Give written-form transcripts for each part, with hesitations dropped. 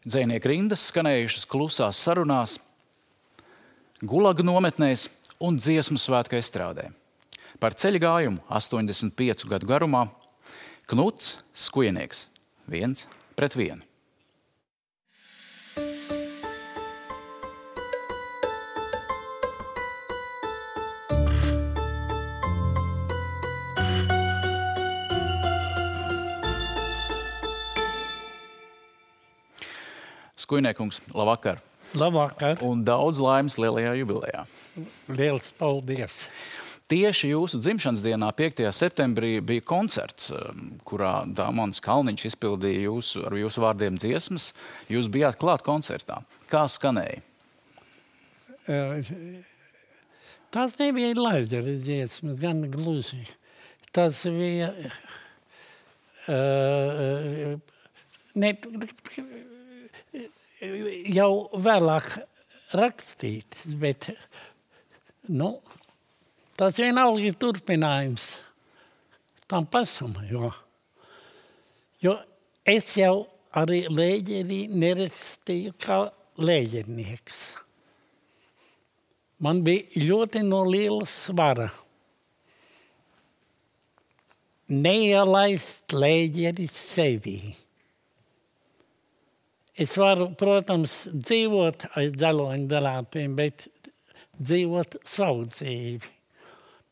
Dzejnieku rindas skanējušas klusās sarunās, Gulagu nometnēs un dziesmu svētku estrādē. Par ceļa gājumu 85 gadu garumā Knuts Skujnieks 1-1. Skujniekungs, labvakar. Labvakar. Un daudz laimes lielajā jubilejā. Liels paldies. Tieši jūsu dzimšanas dienā, 5. septembrī, bija koncerts, kurā Dāmons Kalniņš izpildīja ar jūsu vārdiem dziesmas. Jūs bijāt klāt koncertā. Kā skanēja? Tas nebija Laidera dziesmas, gan gluži. Tas bija jau vēlāk rakstīts, bet tas vienalga ir turpinājums tam pašam, jo es jau arī Lēģerī nerakstīju kā lēģernieks. Man bija ļoti no liela svara neielaist Lēģeri sevī. Es varu, protams, dzīvot aiz dzeloņdarātiem, bet dzīvot savu dzīvi.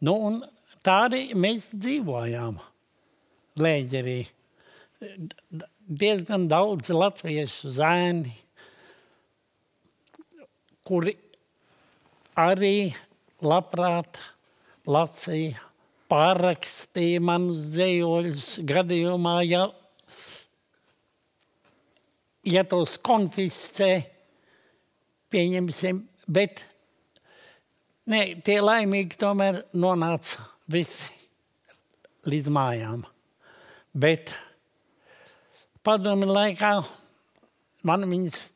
Un tā arī mēs dzīvojām Lēģerī. Diezgan daudz latviešu zēni, kuri arī labprāt lasīja, pārrakstīja manus dzejoļus gadījumā, ja tos konfiscē, pieņemsim, bet tie laimīgi tomēr nonāca visi līdz mājām. Bet padomi laikā man viņas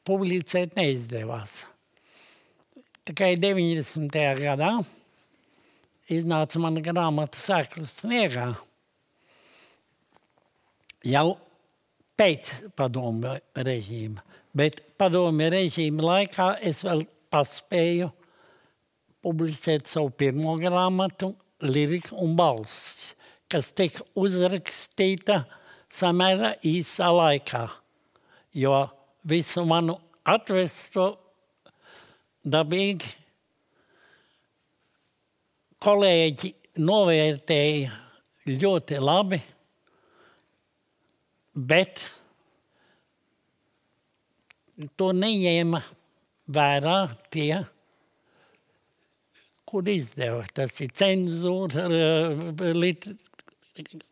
publicēt neizdevās. Tikai 90. gadā iznāca mana grāmata Sēklas sniegā. Jau pēc padomu režīma. Bet padomu režīma laikā es vēl paspēju publicēt savu pirmo grāmatu Lirika un balss, kas tika uzrakstīta samērā īsā laikā, jo visu manu atvesto dabīgi kolēģi novērtēja ļoti labi, bet to neņēma vērā tie, kur izdeva. Tas ir cenzūra,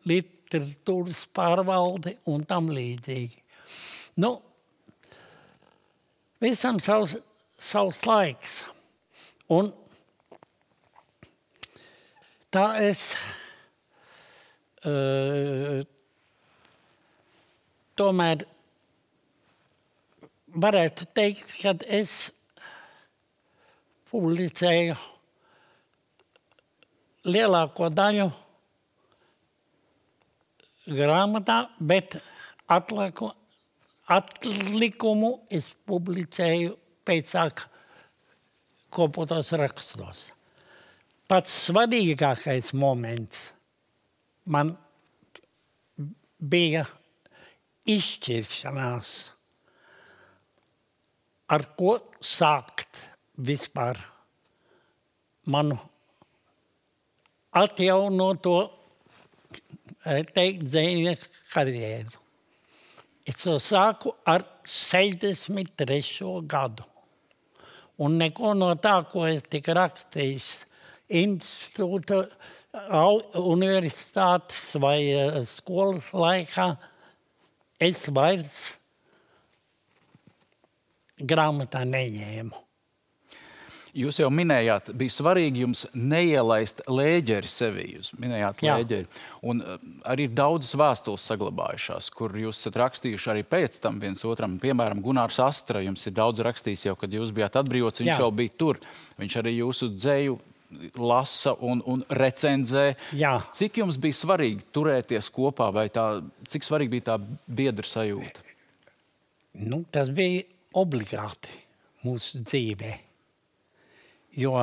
literatūras pārvalde un tam līdzīgi. Visam savs laiks. Un tā es tomēr varētu teikt, ka es publicēju lielāko daļu grāmatā, bet atlikumu es publicēju pēcāk kopotos rakstos. Pats svarīgākais moments man bija izšķiršanās, ar ko sākt vispār manu atjaunoto, teikt, dzejnieku karjeru. Es to sāku ar 63. gadu. Un neko no tā, ko es tika rakstījis institūta, universitātes vai skolas laikā, es vairs grāmatā neņēmu. Jūs jau minējāt, bija svarīgi jums neielaist Lēģeri sevī. Jūs minējāt Lēģeri. Un arī ir daudzas vēstules saglabājušās, kur jūs esat rakstījuši arī pēc tam viens otram. Piemēram, Gunārs Astra jums ir daudz rakstījis jau, kad jūs bijāt atbrīvots, viņš jau bija tur. Viņš arī jūsu dzeju lasa un recenzē. Jā. Cik jums bija svarīgi turēties kopā vai cik svarīgi bija tā biedra sajūta? Nu, tas bija obligāti mūsu dzīvē, jo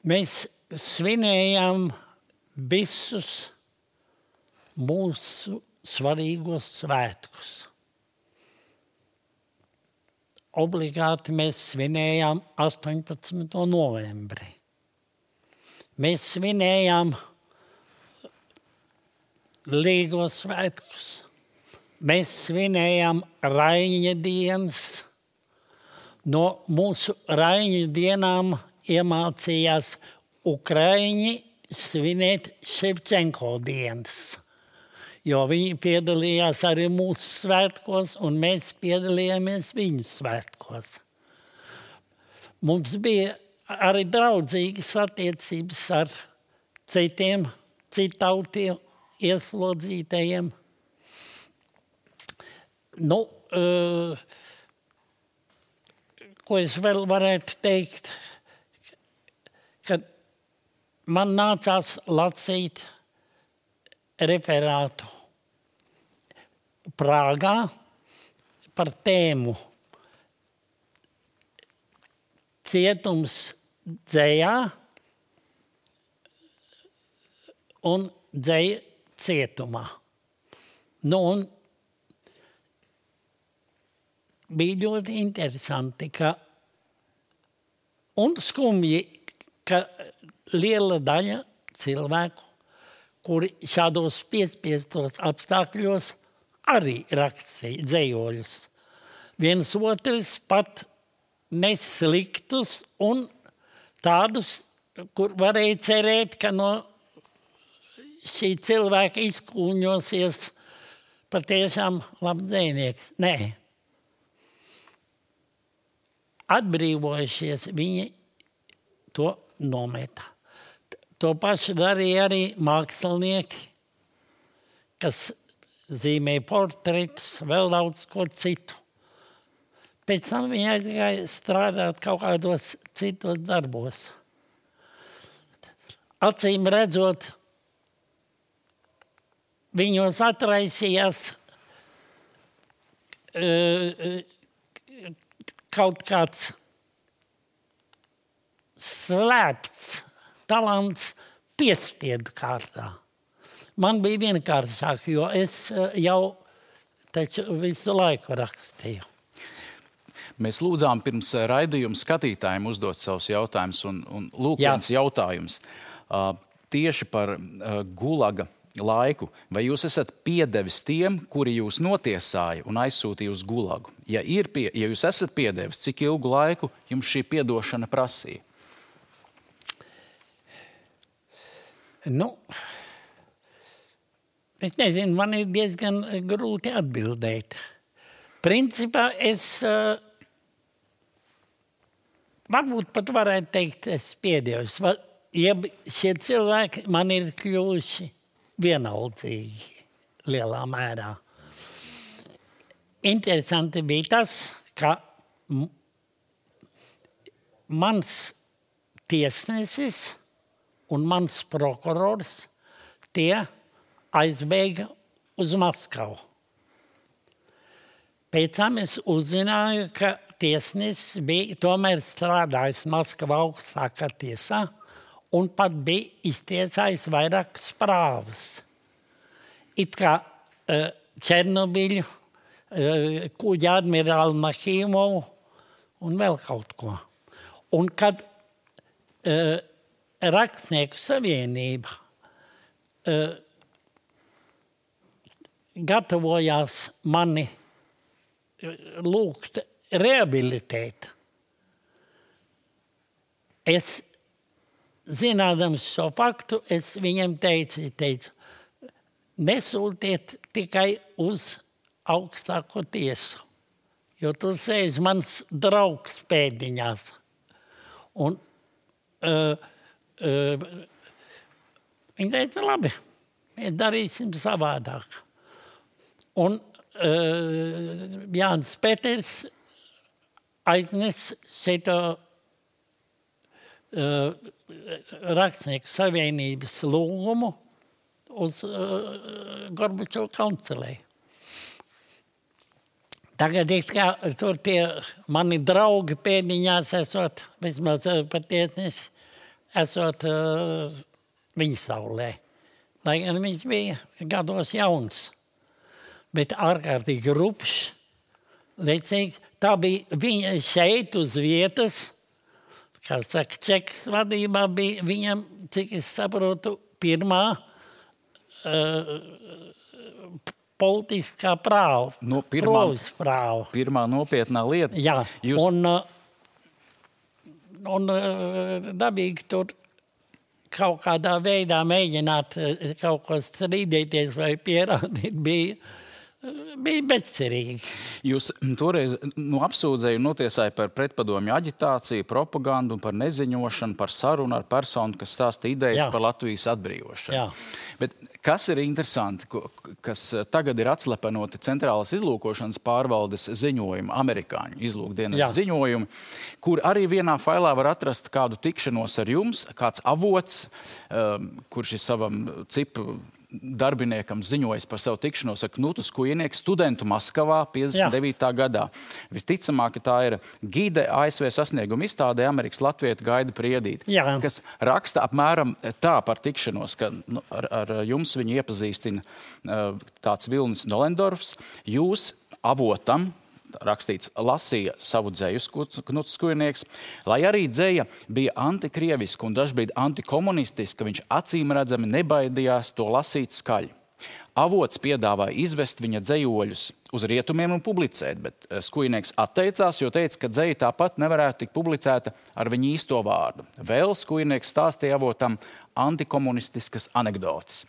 mēs svinējām visus mūsu svarīgos svētkus. Obligāti mēs svinējām 18. novembri. Mēs svinējām Līgos svētkus. Mēs svinējām Raiņa dienas. No mūsu Raiņa dienām iemācījās Ukraiņi svinēt Ševčenko dienas, jo viņi piedalījās arī mūsu svētkos, un mēs piedalījāmies viņu svētkos. Mums bija arī draudzīgas attiecības ar citiem, citautiem ieslodzītajiem. Nu, ko es vēl varētu teikt, kad man nācās lasīt referātu Prāgā par tēmu cietums dzejā un dzeja cietumā. Nu, un bija ļoti interesanti, un skumji, ka liela daļa cilvēku, kuri šādos piespiestos apstākļos arī rakstīja dzejoļus. Viens otrs pat nesliktus un tādus, kur varēja cerēt, ka no šī cilvēka izkūņosies patiešām labs dzejnieks. Nē. Atbrīvojušies, viņi to nometa. To pašu darīja arī mākslinieki, kas zīmēja portretus, vēl daudz ko citu. Pēc tam viņi aizgāja strādāt kaut kādos citos darbos. Acīm redzot, viņos atraisījās kaut kāds slēpts talants piespiedu kārtā. Man bija vienkāršāk, jo es jau taču visu laiku rakstīju. Mēs lūdzām pirms raidījuma skatītājiem uzdot savus jautājumus, un lūk, viens jautājums. Tieši par gulaga laiku. Vai jūs esat piedevis tiem, kuri jūs notiesāja un aizsūtīja uz gulagu? Ja jūs esat piedevis, cik ilgu laiku jums šī piedošana prasīja? Nu, es nezinu, man ir diezgan grūti atbildēt. Principā es varbūt pat varētu teikt, es piedevos. Ja šie cilvēki man ir kļuvuši vienaldzīgi lielā mērā. Interesanti bija tas, ka mans tiesnesis un mans prokurors tie aizbēga uz Maskavu. Pēc tam es uzzināju, ka tiesnesis bija tomēr strādājis Maskavā augstākā tiesā un pat bija iztiesājis vairākas prāvas. It kā Černobiļu, kuģa admirāli Mahīmovu un vēl kaut ko. Un kad Rakstnieku savienība gatavojās mani lūgt rehabilitēt, es, zinādams šo faktu, es viņam teicu, nesūtiet tikai uz augstāko tiesu, jo tur sēž mans draugs pēdiņās. Un viņi teica, labi, mēs darīsim savādāk. Un Jānis Peters aiznes šito Rakstnieku savienības lūgumu uz Gorbačova kancelē. Tagad tur tie mani draugi pēdiņās esot, vismaz patiesnis, esot viņa saulē. Lai gan viņš bija gados jauns, bet ārkārtīgi rupšs, lecīgs. Tā bija viņa šeit uz vietas, kā saka, Čekas vadībā bija viņam, cik es saprotu, pirmā politiskā prāva, provis prāva. Pirmā nopietnā lieta. Jā, un dabīgi tur kaut kādā veidā mēģināt kaut ko strīdēties vai pierādīt bija bezcerīgi. Jūs toreiz apsūdzēju notiesāja par pretpadomju aģitāciju, propagandu un par neziņošanu, par sarunu ar personu, kas stāsta idejas par Latvijas atbrīvošanu. Jā. Bet kas ir interesanti, kas tagad ir atslepenoti Centrālās izlūkošanas pārvaldes ziņojumi, amerikāņu izlūkdienas ziņojumi, kur arī vienā failā var atrast kādu tikšanos ar jums, kāds avots, kurš ir savam cipu darbiniekam ziņojis par savu tikšanos ar Knutu Skujnieku, studentu Maskavā 59. gadā. Visticamāk, ka tā ir gide ASV sasnieguma izstādē Amerikas Latvieta Gaida Priedīte, kas raksta apmēram tā par tikšanos, ka ar jums viņu iepazīstina tāds Vilnis Nolendorfs. Jūs avotam, rakstīts, lasīja savu dzeju Knuts Skujnieks, lai arī dzeja bija antikrieviska un dažbrīd antikomunistiska, viņš acīm redzami nebaidījās to lasīt skaļi. Avots piedāvāja izvest viņa dzejoļus uz rietumiem un publicēt, bet Skujnieks atteicās, jo teica, ka dzeja tāpat nevarētu tikt publicēta ar viņa īsto vārdu. Vēl Skujnieks stāstīja avotam antikomunistiskas anekdotes.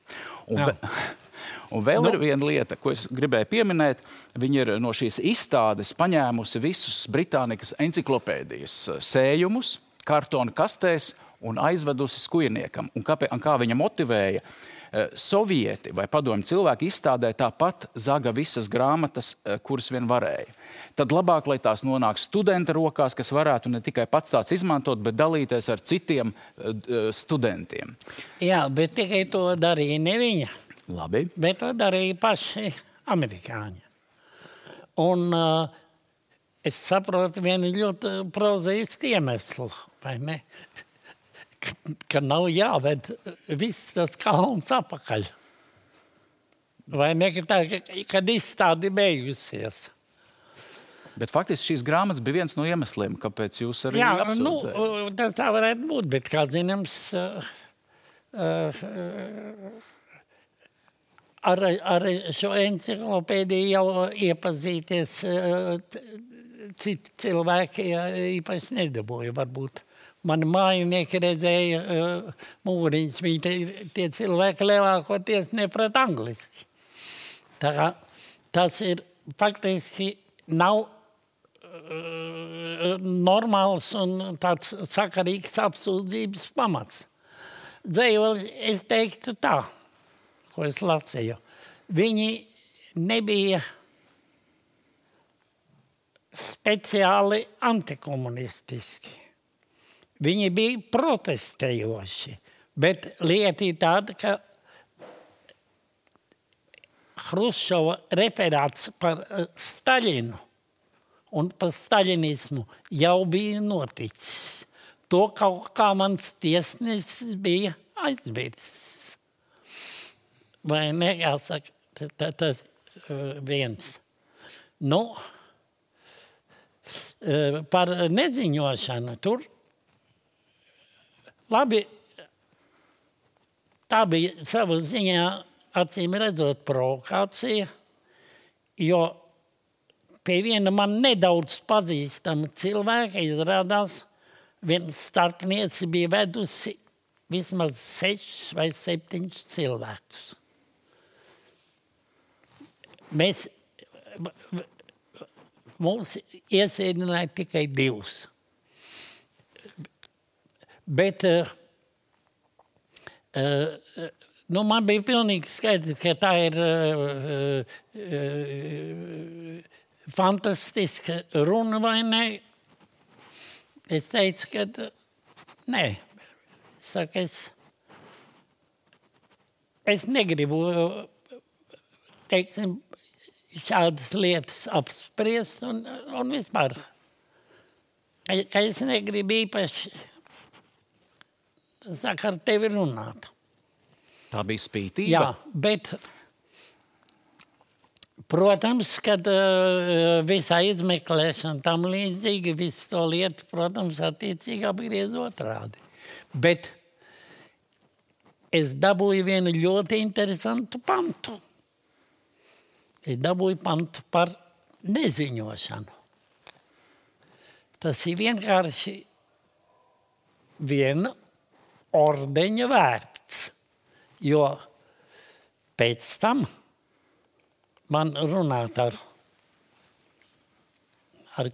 Un vēl ir viena lieta, ko es gribēju pieminēt. Viņa ir no šīs izstādes paņēmusi visus Britānikas enciklopēdijas sējumus, kartona kastēs un aizvedusi Skujniekam. Un kā viņa motivēja, sovieti vai padomju cilvēki izstādē tāpat zaga visas grāmatas, kuras vien varēja. Tad labāk, lai tās nonāk studenta rokās, kas varētu ne tikai pats tāds izmantot, bet dalīties ar citiem studentiem. Jā, bet tikai to darīja ne viņa. Labi. Bet to darīja paši amerikāņi. Un es saprotu vienu ļoti prozaisku iemeslu, vai ne? Ka nav jāved viss tas kalns apakaļ. Vai ne, kad izstādi beigusies. Bet faktiski šīs grāmatas bija viens no iemesliem, kāpēc jūs arī apsūdzējāt. Tā varētu būt, bet kā zināms, ar šo enciklopēdiju jau iepazīties citi cilvēki īpaši nedabūja, varbūt. Mani mājinieki redzēja mūriņus, tie cilvēki lielākoties neprat angliski. Tā kā tas ir faktiski nav normāls un tāds sakarīgs apsūdzības pamats. Dzējoli, es teiktu tā, ko es lasīju. Viņi nebija speciāli antikomunistiski. Viņi bija protestējoši, bet lieta ir tāda, ka Hruščova referāts par Staļinu un par staļinismu jau bija noticis. To kaut kā mans tiesnesis bija aizmirsis. Vai ne, jāsaka, tas viens. Nu, par neziņošanu tur labi, tā bija sava ziņā acīm redzot provokācija, jo pie viena man nedaudz pazīstama cilvēka izrādās, viena starpniece bija vedusi vismaz 6 vai 7 cilvēkus. Mums iesēdināja tikai 2. Bet man bija pilnīgi skaidrs, ka tā ir fantastiska runa vai ne. Es teicu, ka nē. Saka, es negribu, teiksim, šādas lietas apspriest un vispār. Ka es negribu īpaši ar tevi runāt. Tā bija spītība? Jā, bet, protams, kad visā izmeklēšana tam līdzīgi, visu to lietu, protams, attiecīgi apgriez otrādi. Bet es dabūju vienu ļoti interesantu pantu. Es dabūju pantu par neziņošanu. Tas ir vienkārši viena ordeņa vērts, jo pēc tam man runāt ar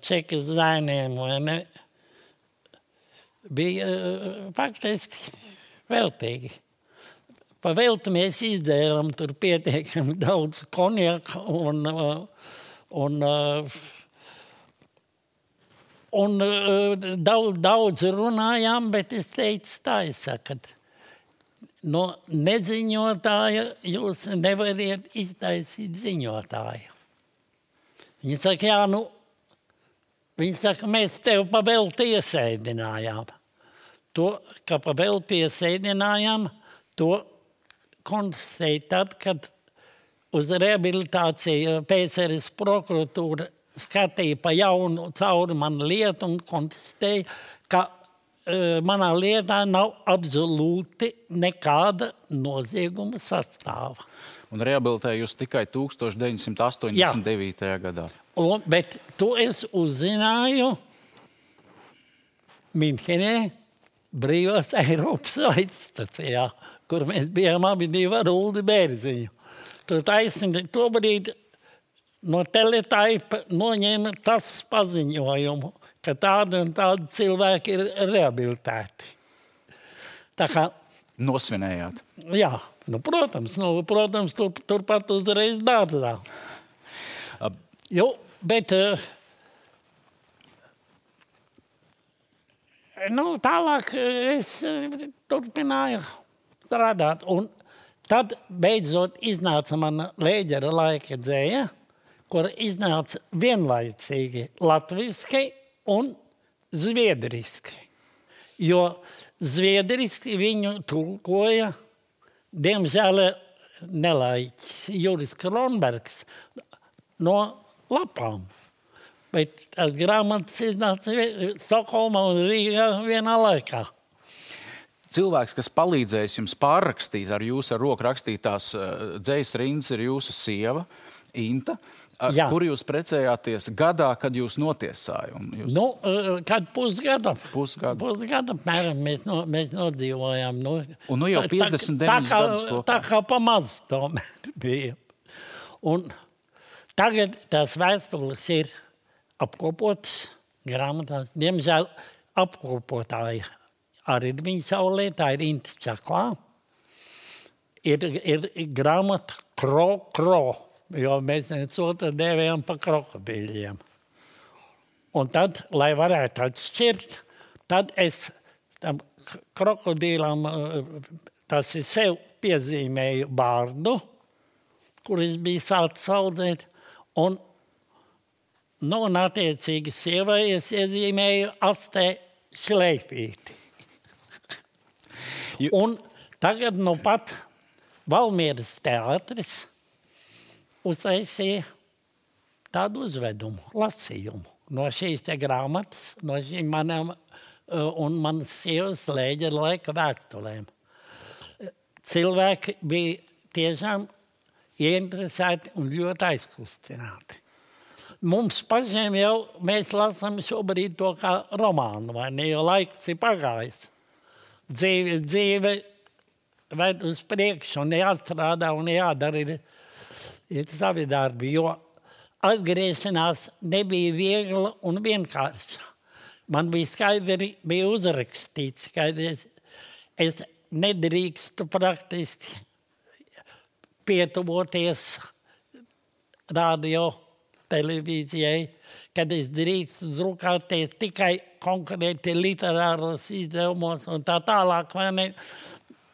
čekas zainiem, vai ne, bija faktiski veltīgi. Pa velti mēs izdzēram tur pietiekami daudz konjaka un daudz runājām, bet es teicu tā, es saku, no neziņotāja jūs nevariet iztaisīt ziņotāju. Viņi saka, viņi saka, mēs tev pa velti iesēdinājām. To, ka pa velti iesēdinājām, to konstatēja tad, kad uz rehabilitāciju PSRS prokuratūra skatīja pa jaunu cauri manu lietu un konstatēja, ka manā lietā nav absolūti nekāda nozieguma sastāva. Un rehabilitēja jūs tikai 1989. gadā. Bet to es uzzināju Minhenē, Brīvās Eiropas raidstacijā, kur mēs bijām abi divi ar Uldi Bērziņu. Tur taisni to brīdi no Teletaipa noņēma tas paziņojumu, ka tādi un tādi cilvēki ir rehabilitēti. Tā kā... Nosvinējāt? Jā, protams, turpat uzreiz dārzā. Jo, bet... tālāk es turpināju strādāt. Un tad beidzot iznāca mana Lēģera laika dzēja, kur iznāca vienlaicīgi latviski un zviedriski. Jo zviedriski viņu tulkoja, diemžēl nelaiķis Juris Kronbergs no lapām. Bet tās grāmatas iznāca Stokholmā un Rīgā vienā laikā. Cilvēks, kas palīdzējis jums pārrakstīt ar jūsu roku rakstītās dzejas rindas, ir jūsu sieva, Inta, kur jūs precējāties gadā, kad jūs notiesāja? Kad pusgada. Pusgada, mēram, mēs nodzīvojām. Un jau 59 gadus kopā. Tā kā pamaz tomēr bija. Un tagad tās vēstules ir apkopotas grāmatās. Diemžēl apkopotāji arī ir viņa saulē, tā ir Inta Čaklā. Ir grāmata Kro, jo mēs viens otru dēvējam pa krokodīļiem. Un tad, lai varētu atšķirt, tad es tam krokodīlam, tas ir sev piezīmēju bārdu, kur es biju sācis audzēt, un attiecīgi sievai es iezīmēju astē šleifīti. Un tagad pat Valmieras teātris uztaisīja tādu uzvedumu, lasījumu no šīs te grāmatas, no šīm manām un manas sievas Lēģera laika vēstulēm. Cilvēki bija tiešām ieinteresēti un ļoti aizkustināti. Mums pašiem jau mēs lasām šobrīd to kā romānu, vai ne, jo laiks ir pagājis. Dzīve ved uz priekšu un jāstrādā un jādara ir savi darbi, jo atgriešanās nebija viegla un vienkārša. Man bija skaidri uzrakstīts, ka es nedrīkstu praktiski pietuvoties radio televīzijai, kad es drīkstu drukāties tikai konkrēti literāros izdevumos un tā tālāk, vai ne?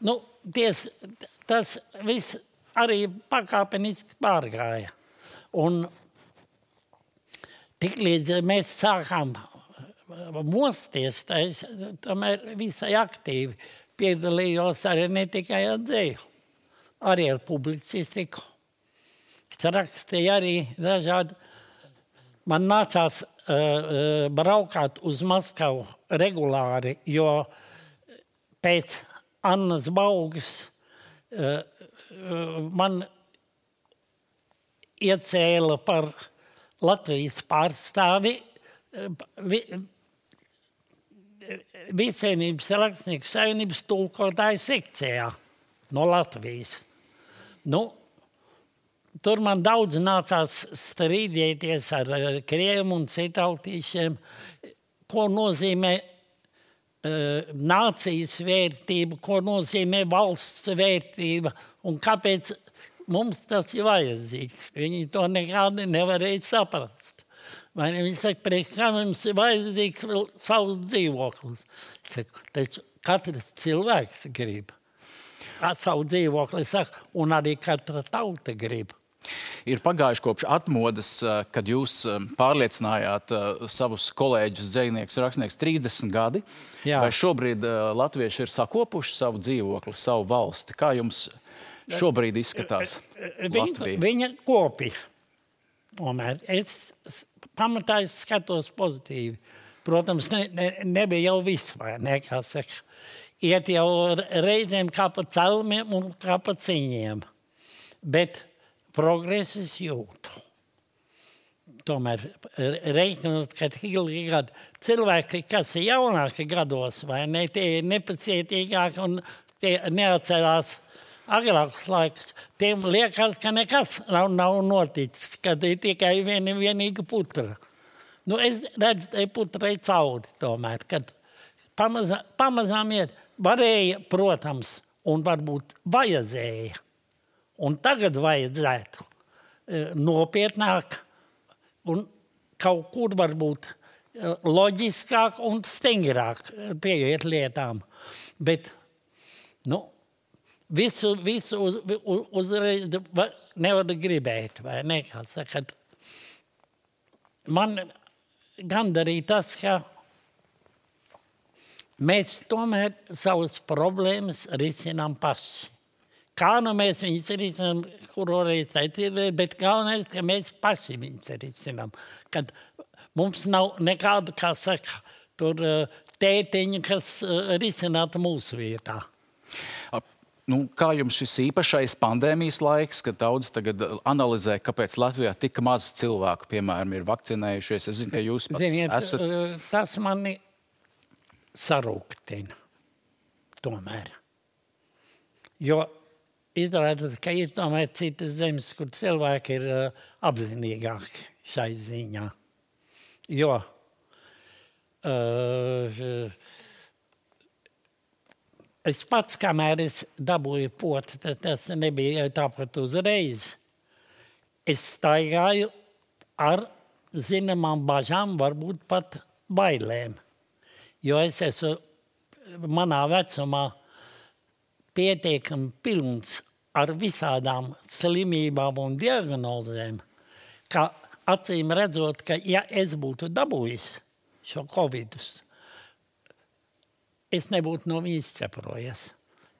Nu, tas viss arī pakāpeniski pārgāja. Un tiklīdz mēs sākām mosties, es tomēr visai aktīvi piedalījos arī ne tikai ar dzēju, arī ar publicistiku. Es rakstīju arī dažādi. Man nācās braukāt uz Maskavu regulāri, jo pēc Annas Baugas man iecēla par Latvijas pārstāvi Vicēnības rakstnieku savienības tulkotāju sekcijā no Latvijas. Nu, tur man daudz nācās strīdēties ar krieviem un citautīšiem, ko nozīmē nācijas vērtība, ko nozīmē valsts vērtība un kāpēc mums tas ir vajadzīgs. Viņi to nekādi nevarēja saprast. Vai ne? Viņi saka, priekš kā mums ir vajadzīgs vēl savs dzīvoklis. Es saku, taču katrs cilvēks grib savu dzīvokli, saka, un arī katra tauta grib. Ir pagājuši kopš atmodas, kad jūs pārliecinājāt savus kolēģus, dzejniekus, rakstniekus 30 gadi. Jā. Vai šobrīd latvieši ir sakopuši savu dzīvokli, savu valsti? Kā jums šobrīd izskatās Latvija? Viņa kopi. Tomēr es pamatā skatos pozitīvi. Protams, nebija jau viss, vai ne, kā saka. Iet jau reizēm kā pa celmiem un kā pa ciņiem. Bet progreses jūtu. Tomēr reiķinot, ka cilvēki, kas ir jaunāki gados, vai ne, tie ir nepacietīgāki un tie neatcerās agrākus laikus, tiem liekas, ka nekas nav noticis, kad ir tikai vienīga putra. Nu, es redzu, te putrai cauri tomēr, kad pamazām iet, varēja, protams, un varbūt vajadzēja. Un tagad vajadzētu nopietnāk un kaut kur varbūt loģiskāk un stingrāk pieiet lietām. Bet, nu, visu uzreiz nevar gribēt, vai ne? Sakat, man gandarīja tas, ka mēs tomēr savas problēmas risinām paši. Kā nu mēs viņus risinām, kuru reiz ir, bet galvenais, ka mēs paši viņus risinām. Kad mums nav nekādu, kā saka, tur tētiņu, kas risinātu mūsu vietā. Nu, kā jums šis īpašais pandēmijas laiks, kad daudz tagad analizē, kāpēc Latvijā tik maz cilvēku, piemēram, ir vakcinējušies? Es zinu, ka jūs pats esat... Tas mani sarūktina tomēr. Jo izrādās, ka ir tomēr citas zemes, kur cilvēki ir apzinīgāki šai ziņā. Jo es pats, kamēr es dabūju poti, tas nebija tāpat uzreiz. Es staigāju ar zināmām bažām, varbūt pat bailēm. Jo es esmu manā vecumā pietiekami pilns ar visādām slimībām un diagnozēm, ka acīm redzot, ka ja es būtu dabūjis šo covidus, es nebūtu no viņas ceprojies.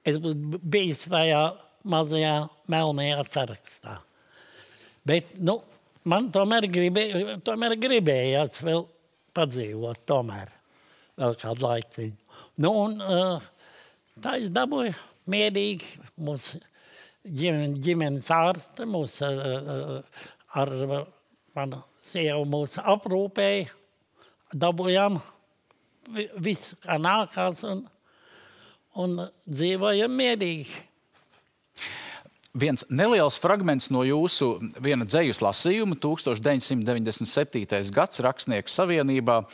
Es būtu bijis tajā mazajā melnajā sarakstā. Bet, nu, man tomēr gribējās vēl padzīvot tomēr vēl kādu laiciņu. Nu, un tā es dabūju mierīgi mūsu ģimenes ārste, ar manu sievu mūsu aprūpēja, dabūjām visu, kā nākās, un dzīvojam mierīgi. Viens neliels fragments no jūsu viena dzejas lasījuma, 1997. gads Rakstnieku savienībā,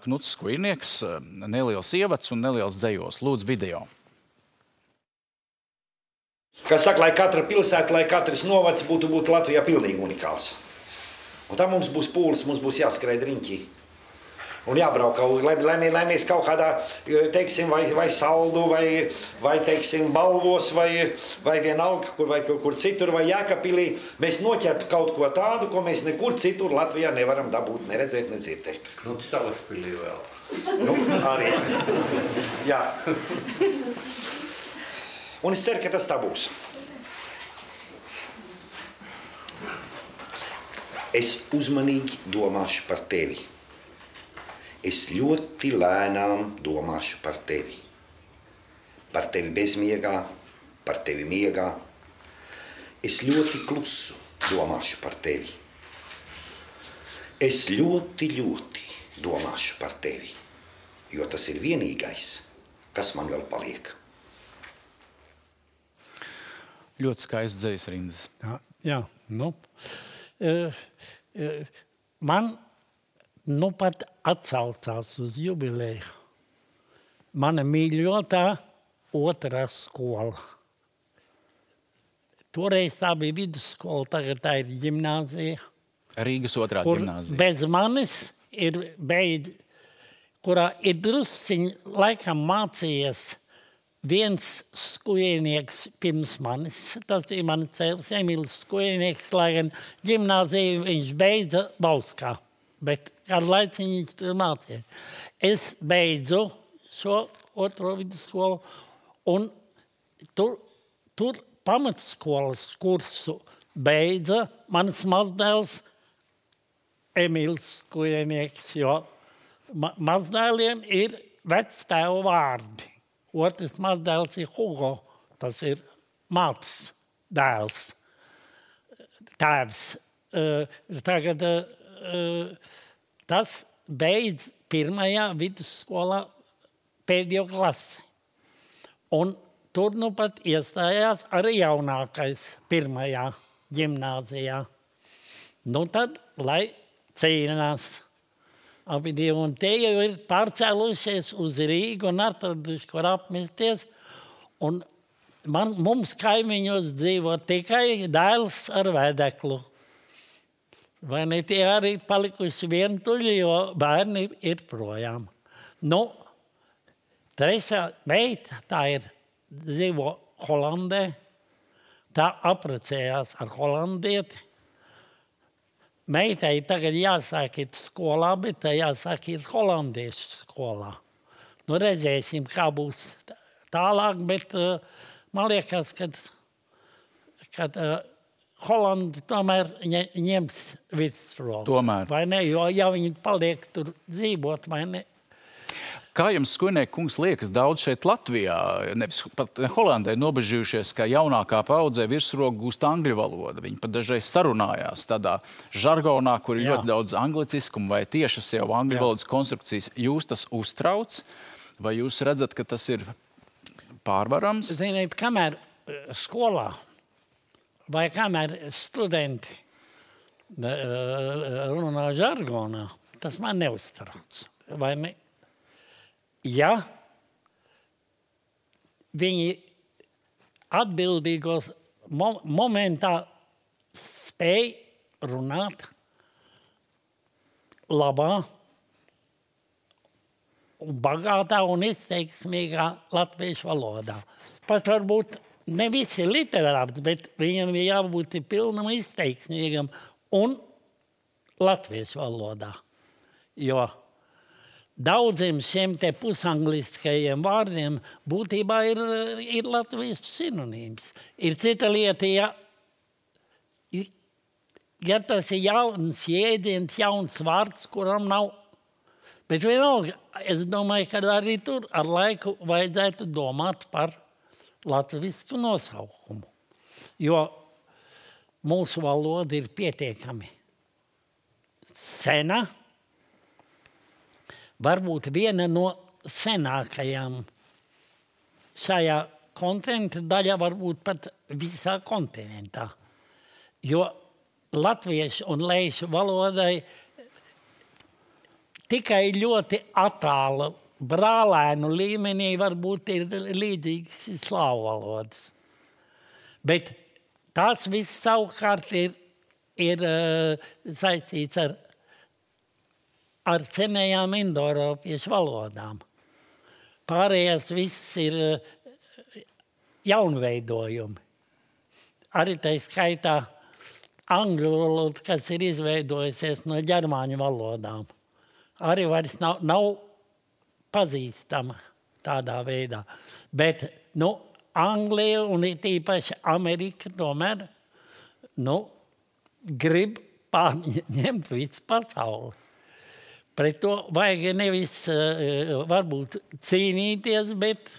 Knuts Skujnieks, neliels ievads un neliels dzejos. Lūdzu, video. Kā saka, lai katra pilsēta, lai katrs novads būtu Latvijā pilnīgi unikāls. Un tā mums būs pūles, mums būs jāskrēja riņķī. Un jābrauk, lai mēs kaut kādā, teiksim, vai saldu, vai teiksim, Balvos, vai vienalga, kur citur, vai Jēkabpilī, mēs noķertu kaut ko tādu, ko mēs nekur citur Latvijā nevaram dabūt, neredzēt, nedzirdēt. Nu, Salaspilī vēl. Nu, arī. Jā. Un es ceru, ka tas tā būs. Es uzmanīgi domāšu par tevi. Es ļoti lēnām domāšu par tevi. Par tevi bezmiegā, par tevi miegā. Es ļoti klusu domāšu par tevi. Es ļoti domāšu par tevi, jo tas ir vienīgais, kas man vēl paliek. Ļoti skaists dzejas rindas. Jā, nu. Man nu pat atsaucās uz jubileju. Mana mīļotā otrā skola. Toreiz tā bija vidusskola, tagad tā ir ģimnāzija. Rīgas otrā kur ģimnāzija. Bez manis ir beidz, kurā ir drusciņi laikam mācījies viens skujnieks pirms manis. Tas ir mans cēls Emīls Skujnieks, lai gan ģimnāziju viņš beidza Bauskā. Bet kādu laiciņu viņš tur mācīja. Es beidzu šo otro vidusskolu un tur pamatskolas kursu beidza mans mazdēls Emīls Skujnieks, jo mazdēliem ir vectēva vārdi. Otrs mazdēls ir Hugo, tas ir mātes dēls, tēvs. Tagad tas beidz pirmajā vidusskolā pēdējo klasi. Un tur nu pat iestājās arī jaunākais pirmajā ģimnāzijā. Nu tad, lai cīnās. Abi divi, un te jau ir pārcēlušies uz Rīgu un atraduši, kur apmesties. Un mums kaimiņos dzīvo tikai dēls ar vedeklu. Vai ne tie arī palikuši vientuļi, jo bērni ir projām. Nu, trešā meita, tā ir dzīvo Holandē, tā apprecējās ar holandieti. Meitai tagad jāsāk iet skolā, bet tā jāsāk iet holandiešu skolā. Nu, redzēsim, kā būs tālāk, bet man liekas, ka Holandi tomēr ņems virsroku. Tomēr. Vai ne? Jo ja viņi paliek tur dzīvot, vai ne? Kā jums, Skujniek kungs, liekas, daudz šeit Latvijā, nevis pat Holandē, nobežījušies, ka jaunākā paudzē virsroku gūst angļu valodu. Viņi pat dažreiz sarunājās tādā žargonā, kur ir ļoti daudz angliciskumu vai tiešas jau angļu valodas konstrukcijas. Jūs tas uztrauc? Vai jūs redzat, ka tas ir pārvarams? Ziniet, kamēr skolā vai kamēr studenti runā žargonā, tas man neuztrauc. Vai ne? Ja viņi atbildīgos momentā spēj runāt labā un bagātā un izteiksmīgā latviešu valodā. Pat varbūt ne visi literāti, bet viņam ir jābūt pilnam izteiksmīgam un latviešu valodā. Jo daudziem šiem te pusangliskajiem vārdiem būtībā ir latviešu sinonīms. Ir cita lieta, ja tas ir jauns jēdziens, jauns vārds, kuram nav. Bet vienalga, es domāju, ka arī tur ar laiku vajadzētu domāt par latvisku nosaukumu. Jo mūsu valoda ir pietiekami sena, varbūt viena no senākajām šajā kontinenta daļā, varbūt pat visā kontinentā. Jo latviešu un leišu valodai tikai ļoti attāla brālēnu līmenī varbūt ir līdzīgas slāvu valodas. Bet tās viss savukārt ir saistīts ar ar senajām indoeiropiešu valodām. Pārējās viss ir jaunveidojumi. Arī tā skaitā angļu valoda, kas ir izveidojusies no ģermāņu valodām. Arī vairs nav pazīstama tādā veidā. Bet, Anglija un tīpaši Amerika tomēr, grib pārņemt visu pasauli. Pret to vajag nevis varbūt cīnīties, bet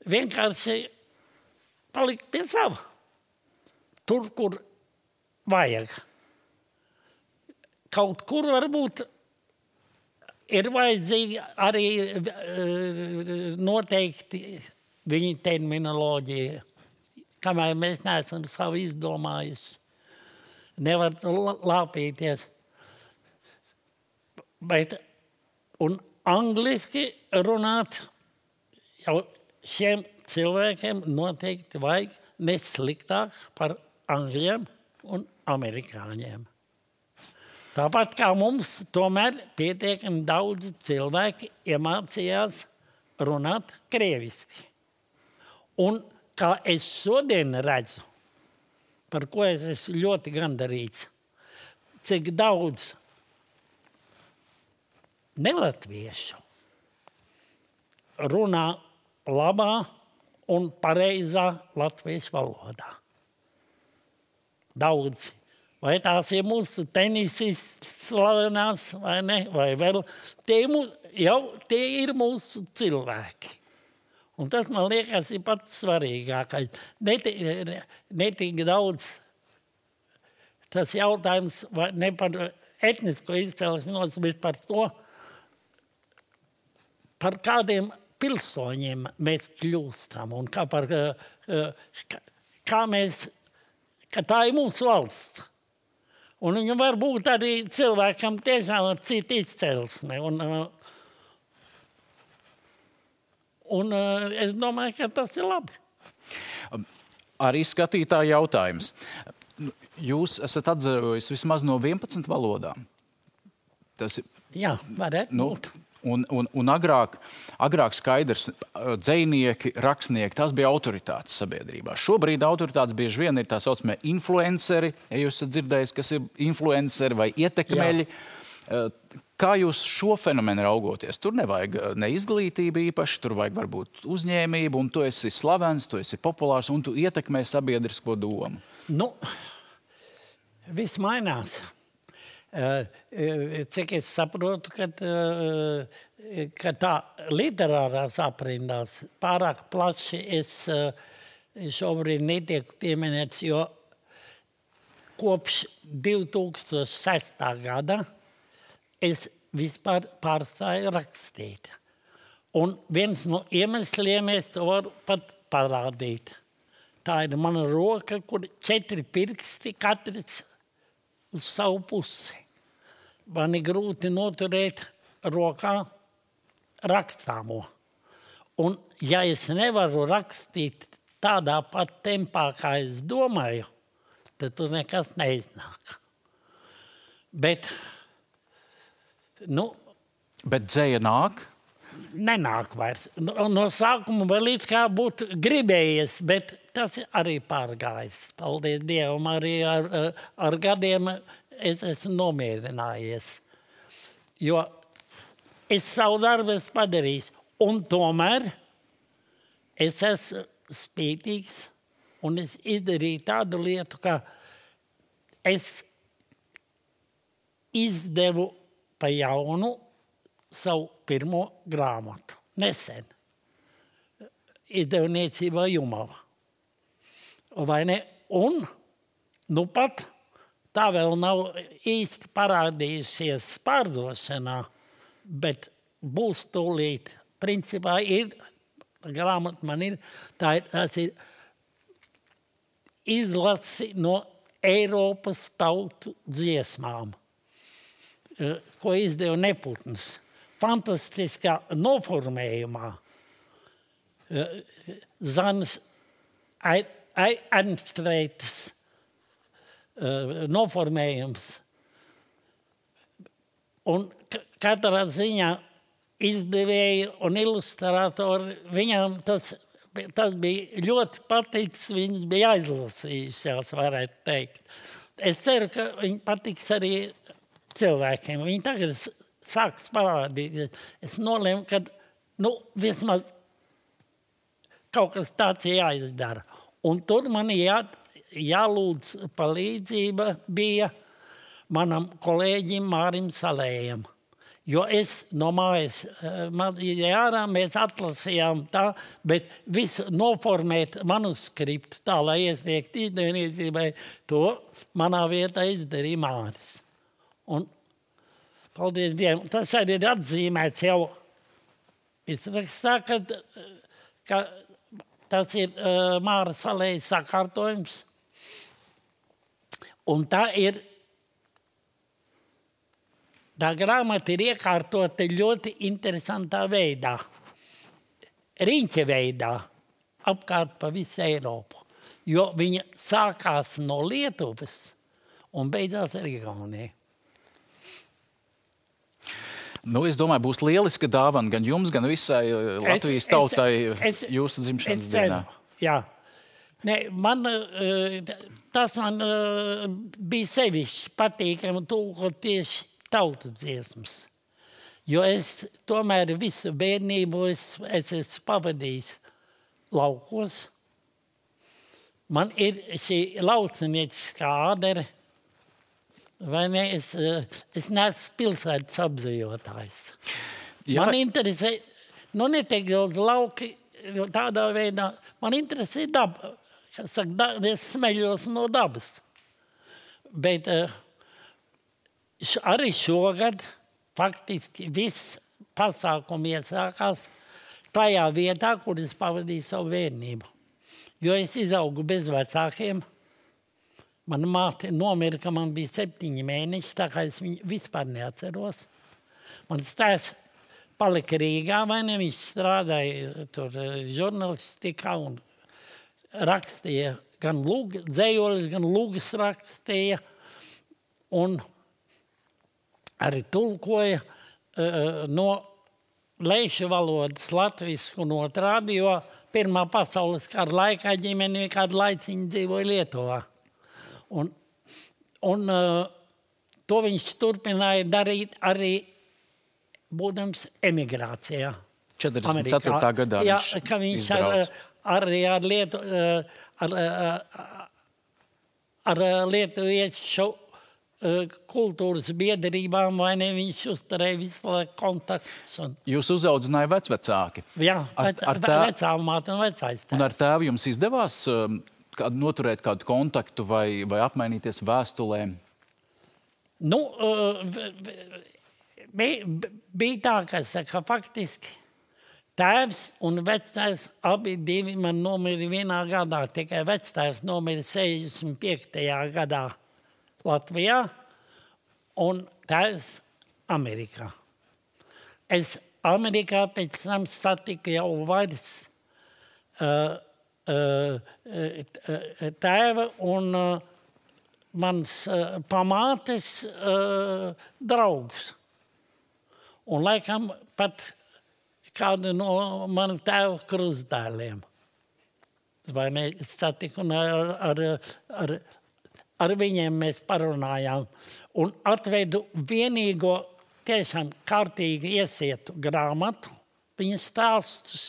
vienkārši palikt pie sava. Tur, kur vajag. Kaut kur varbūt ir vajadzīgi arī noteikti viņa terminoloģija, kamēr mēs neesam savu izdomājuši. Nevar lāpīties. Bet, un angliski runāt jau šiem cilvēkiem noteikti vajag nesliktāk par angļiem un amerikāņiem. Tāpat kā mums tomēr pietiekami daudz cilvēki iemācījās runāt krieviski. Un kā es šodien redzu, par ko es esmu ļoti gandarīts, cik daudz nelatviešu runā labā un pareizā latviešu valodā. Daudz. Vai tās ir mūsu tenisists slavenās, vai ne? Vai vēl. Tie ir mūsu cilvēki. Un tas, man liekas, ir pats svarīgākais. Netik daudz tas jautājums ne par etnisko izcelsmes, bet par to, par kādiem pilsoņiem mēs kļūstam un kā tā ir mūsu valsts. Un viņa var būt arī cilvēkam tiešām ar citu izcelsmi. Un es domāju, ka tas ir labi. Arī skatītāja jautājums. Jūs esat atzarojis vismaz no 11 valodām. Tas ir... Jā, varētu būt. Un agrāk skaidrs, dzejnieki, rakstnieki, tas bija autoritātes sabiedrībā. Šobrīd autoritātes bieži vien ir tā saucamie influenceri, ja jūs esat dzirdējis, kas ir influenceri vai ietekmeļi. Jā. Kā jūs šo fenomenu raugoties? Tur nevajag ne izglītību īpaši, tur vajag varbūt uzņēmību, un tu esi slavens, tu esi populārs, un tu ietekmē sabiedrisko domu. Viss mainās. Cik es saprotu, ka tā literārās aprindās pārāk plaši es šobrīd netieku pieminēts, jo kopš 2006. gada es vispār pārstāju rakstīt. Un viens no iemesliem es to varu pat parādīt. Tā ir mana roka, kur 4 pirksti katrs uz savu pusi. Man ir grūti noturēt rokā rakstāmo. Un ja es nevaru rakstīt tādā pat tempā, kā es domāju, tad tur nekas neiznāk. Bet dzēja nāk? Nenāk vairs. No sākuma vēl it kā būtu gribējies, bet tas arī pārgājis. Paldies Dievam, arī ar gadiem es esmu nomierinājies. Jo es savu darbu esmu padarījis. Un tomēr es esmu spītīgs un es izdarīju tādu lietu, ka es izdevu pa jaunu savu pirmo grāmatu. Nesen. Izdevniecībā Jumava. Vai ne? Un, pat tā vēl nav īsti parādījusies pārdošanā, bet būs tūlīt. Principā ir, grāmata man ir, tas ir izlasi no Eiropas tautu dziesmām, ko izdeva Neputns. Fantastiskā noformējumā. Zanas Ernstreitas noformējums. Un katrā ziņā izdevēji un ilustratori, viņām tas bija ļoti paticis, viņas bija aizlasījušās, varētu teikt. Es ceru, ka viņi patiks arī cilvēkiem. Viņi tagad sāks parādīt. Es nolēmu, ka vismaz kaut kas tāds jāizdara. Un tur man jālūdz palīdzība bija manam kolēģim Mārim Salējam. Jo es no mājas ārā mēs atlasījām tā, bet visu noformēt manuskriptu tā, lai iesniegt izdevniecībai, to manā vietā izdarīja Māris. Un paldies Dievam, tas arī ir atzīmēts jau izrakstā, ka tas ir Māra Salējas sakārtojums. Un tā grāmata ir iekārtota ļoti interesantā veidā, riņķa veidā, apkārt pa visu Eiropu. Jo viņa sākās no Lietuvas un beidzās ar Igauniju. Es domāju, būs lieliska dāvana gan jums, gan visai Latvijas tautai jūsu dzimšanas dienā. Jā. Tas man bija sevišķi patīkami tulkot tieši tautas dziesmas. Jo es tomēr visu bērnību es esmu pavadījis laukos. Man ir šī laucinieciskā ādere, vai ne? Es neesmu pilsētas apzejotājs. Jā. Man interesē, netiek daudz lauki, jo tādā veidā man interesē daba. Es smeļos no dabas. Bet arī šogad faktiski viss pasākumi iesākās tajā vietā, kur es pavadīju savu bērnību. Jo es izaugu bez vecākiem. Mana māte nomira, ka man bija 7 mēneši, tā kā es viņu vispār neatceros. Mans tēvs palika Rīgā, vai ne? Viņš strādāja tur žurnalistikā un rakstīja gan dzējoļus, gan lūgas rakstīja. Un arī tulkoja no leišu valodas latvisku notrādi, jo Pirmā pasaules kara laikā ģimene kādu laiciņu dzīvoja Lietuvā. Un to viņš turpināja darīt arī būdams emigrācijā. 44. gadā viņš arī ar lietuviešu kultūras biedrībām, vai ne, viņš uzturēja visu laiku kontaktus. Jūs uzaudzināja vecvecāki? Jā, vecāmāte un vecais tēvs. Un ar tēvu jums izdevās noturēt kādu kontaktu vai apmainīties vēstulēm? Bija tā, ka faktiski tēvs un vectēvs abi divi man nomira vienā gadā. Tikai vectēvs nomira 65. gadā Latvijā un tēvs Amerikā. Es Amerikā pēc tam satiku jau vairs tēva un mans pamātes draugus. Un laikam pat kādu no manu tēva krustdēliem. Vai ne, satiku un ar viņiem mēs parunājām. Un atvedu vienīgo tiešām kārtīgi iesietu grāmatu, viņa stāstus,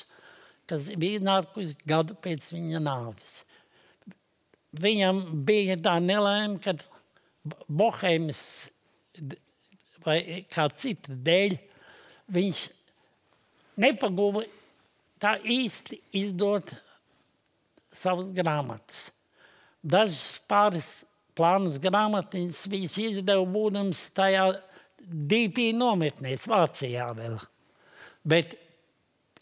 kas bija nākusi gadu pēc viņa nāves. Viņam bija tā nelaime, kad Bohēmas vai kā cita dēļ viņš nepaguva tā īsti izdot savas grāmatas. Dažas pāris plānas grāmatiņas viņš izdeva būdams tajā DP nometnēs Vācijā vēl. Bet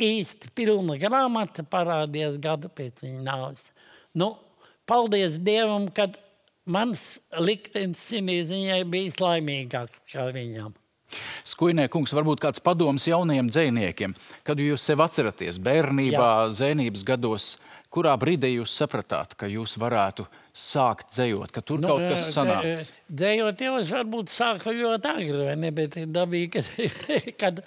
īsti pilna grāmata parādījās gadu pēc viņa nāves. Paldies Dievam, kad mans liktenis ziņai bijis laimīgāks kā viņam. Skujnē kungs, varbūt kāds padoms jaunajiem dzejniekiem, kad jūs sev atceraties bērnībā, zēnības gados, kurā brīdī jūs sapratāt, ka jūs varētu sākt dzejot, ka tur kaut kas sanāks? Dzejot jau es varbūt sāku ļoti agri, vai ne? Bet ir dabīgi, kad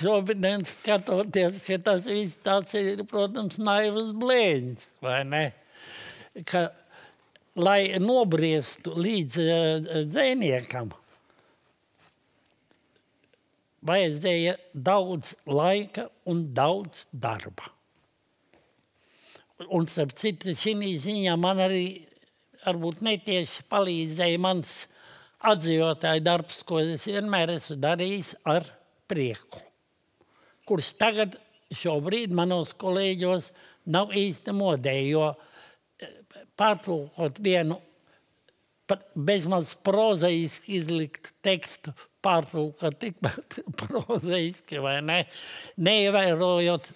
šobrīd skatoties, ka tas viss tāds ir, protams, naivas blēņas, vai ne? Ka, lai nobriestu līdz dzejniekam, vajadzēja daudz laika un daudz darba. Un starp citu, šī ziņā man arī varbūt netieši palīdzēja mans atdzīvotāju darbs, ko es vienmēr esmu darījis ar prieku. Kurš tagad šobrīd manos kolēģos nav īsti modē, jo pārtulkot vienu bezmaz prozaiski izlikt tekstu, pārtulkot tikpat prozaiski, vai ne? Neievērojot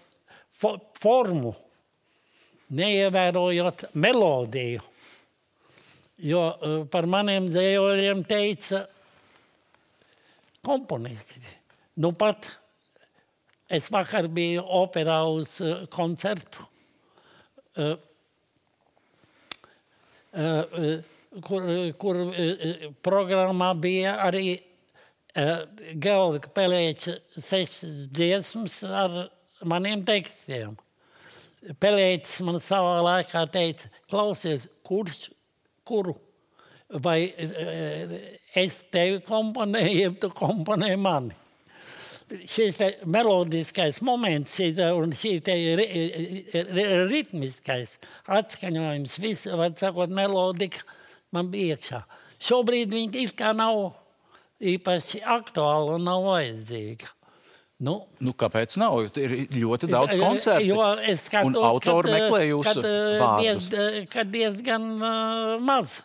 formu, neievērojot melodiju. Jo par maniem dzējoļiem teica komponisti. Nu pat es vakar biju operā uz koncertu, kur programmā bija arī Georga Pelēča 6 dziesmas ar maniem tekstiem. Pelēķis man savā laikā teica, klausies, kuru? Vai es tevi komponēju, tu komponē mani? Šis melodiskais moments un šī ritmiskais atskaņojums, viss, var sakot, melodika man bija iekšā. Šobrīd viņi ir kā nav īpaši aktuāli un nav vajadzīga. Nu, kāpēc nav? Ir ļoti daudz koncertu. Jo es skatos, un autori meklē jūsu vārdus. Kad diezgan maz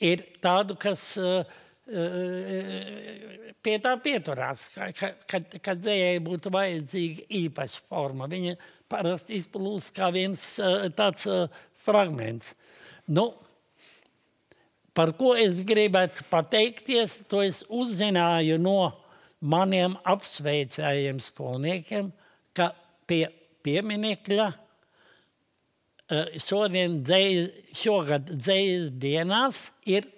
ir tādu, kas pie tā pieturās, kad dzējai būtu vajadzīga īpaša forma. Viņa parasti izplūst kā viens tāds fragments. Nu, par ko es gribētu pateikties, to es uzzināju no maniem apsveicējiem skolniekiem, ka pie pieminekļa šogad dzejas dienās ir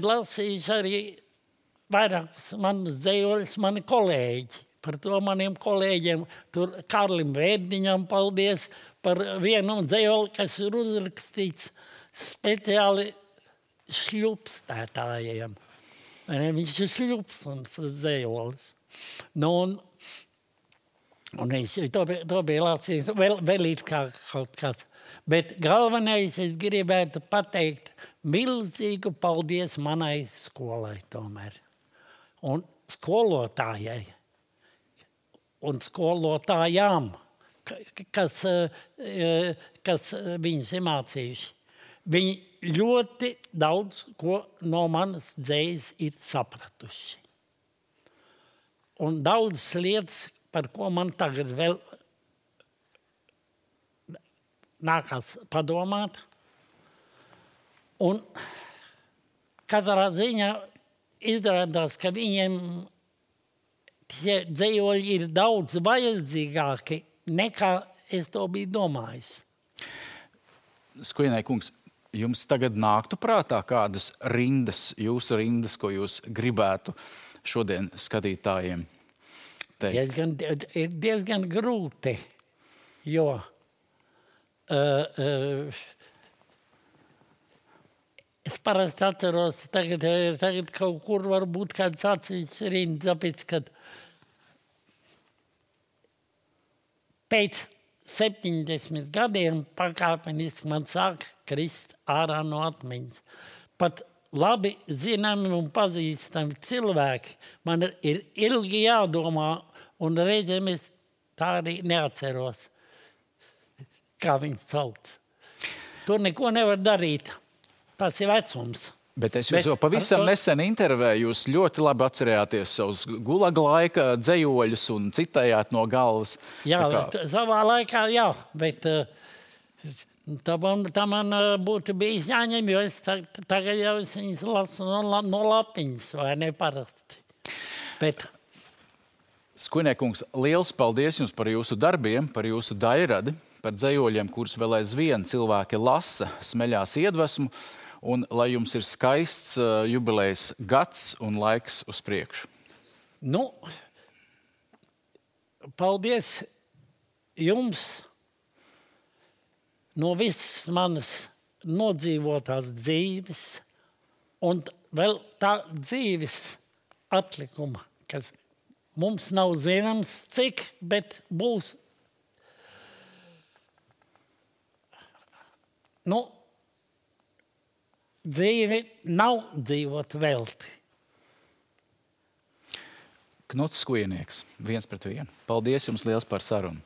lasījuši arī vairākus manus dzejoļus mani kolēģi. Par to maniem kolēģiem, tur Karlim Vērdiņam paldies par vienu dzejoļu, kas ir uzrakstīts speciāli šļupstētājiem. Viņš ir šļupstams dzējolis. Nu, un es to bija lasījis vēl it kā kaut kas. Bet galvenais es gribētu pateikt milzīgu paldies manai skolai tomēr. Un skolotājai. Un skolotājām, kas viņus ir mācījuši. Viņi ļoti daudz ko no manas dzējas ir sapratuši. Un daudzas lietas, par ko man tagad vēl nākās padomāt. Un katrā ziņā izrādās, ka viņiem tie dzējoļi ir daudz vajadzīgāki nekā es to biju domājis. Skujenai kungs, jums tagad nāktu prātā kādas rindas, jūsu rindas, ko jūs gribētu šodien skatītājiem teikt? Ir diezgan grūti, jo es parasti atceros, tagad kaut kur varbūt kāds atsevišķs rindas, tāpēc, kad pēc 70 gadiem pakāpeniski man sāk krist ārā no atmiņas. Pat labi zināmi un pazīstami cilvēki man ir ilgi jādomā, un reizēm es tā arī neatceros, kā viņu sauc. Tur neko nevar darīt. Tas ir vecums. Bet es jūs jau pavisam nesen intervēju, jūs ļoti labi atcerējāties savus gulaga laika dzejoļus un citējāt no galvas. Jā, savā laikā, jā, bet tā man būtu bijis jāņem, jo es tagad jau viņas lasu no lapiņas, vai ne parasti. Bet Skujniekungs, liels paldies jums par jūsu darbiem, par jūsu dairadi, par dzejoļiem, kurus vēl aizvien cilvēki lasa, smeļās iedvesmu, un lai jums ir skaists jubilejas gads un laiks uz priekšu. Nu, paldies jums no visas manas nodzīvotās dzīves un vēl tā dzīves atlikuma, kas mums nav zināms cik, bet būs. Nu, dzīve nav dzīvot velti. Knuts Skujnieks, 1-1. Paldies jums liels par sarunu.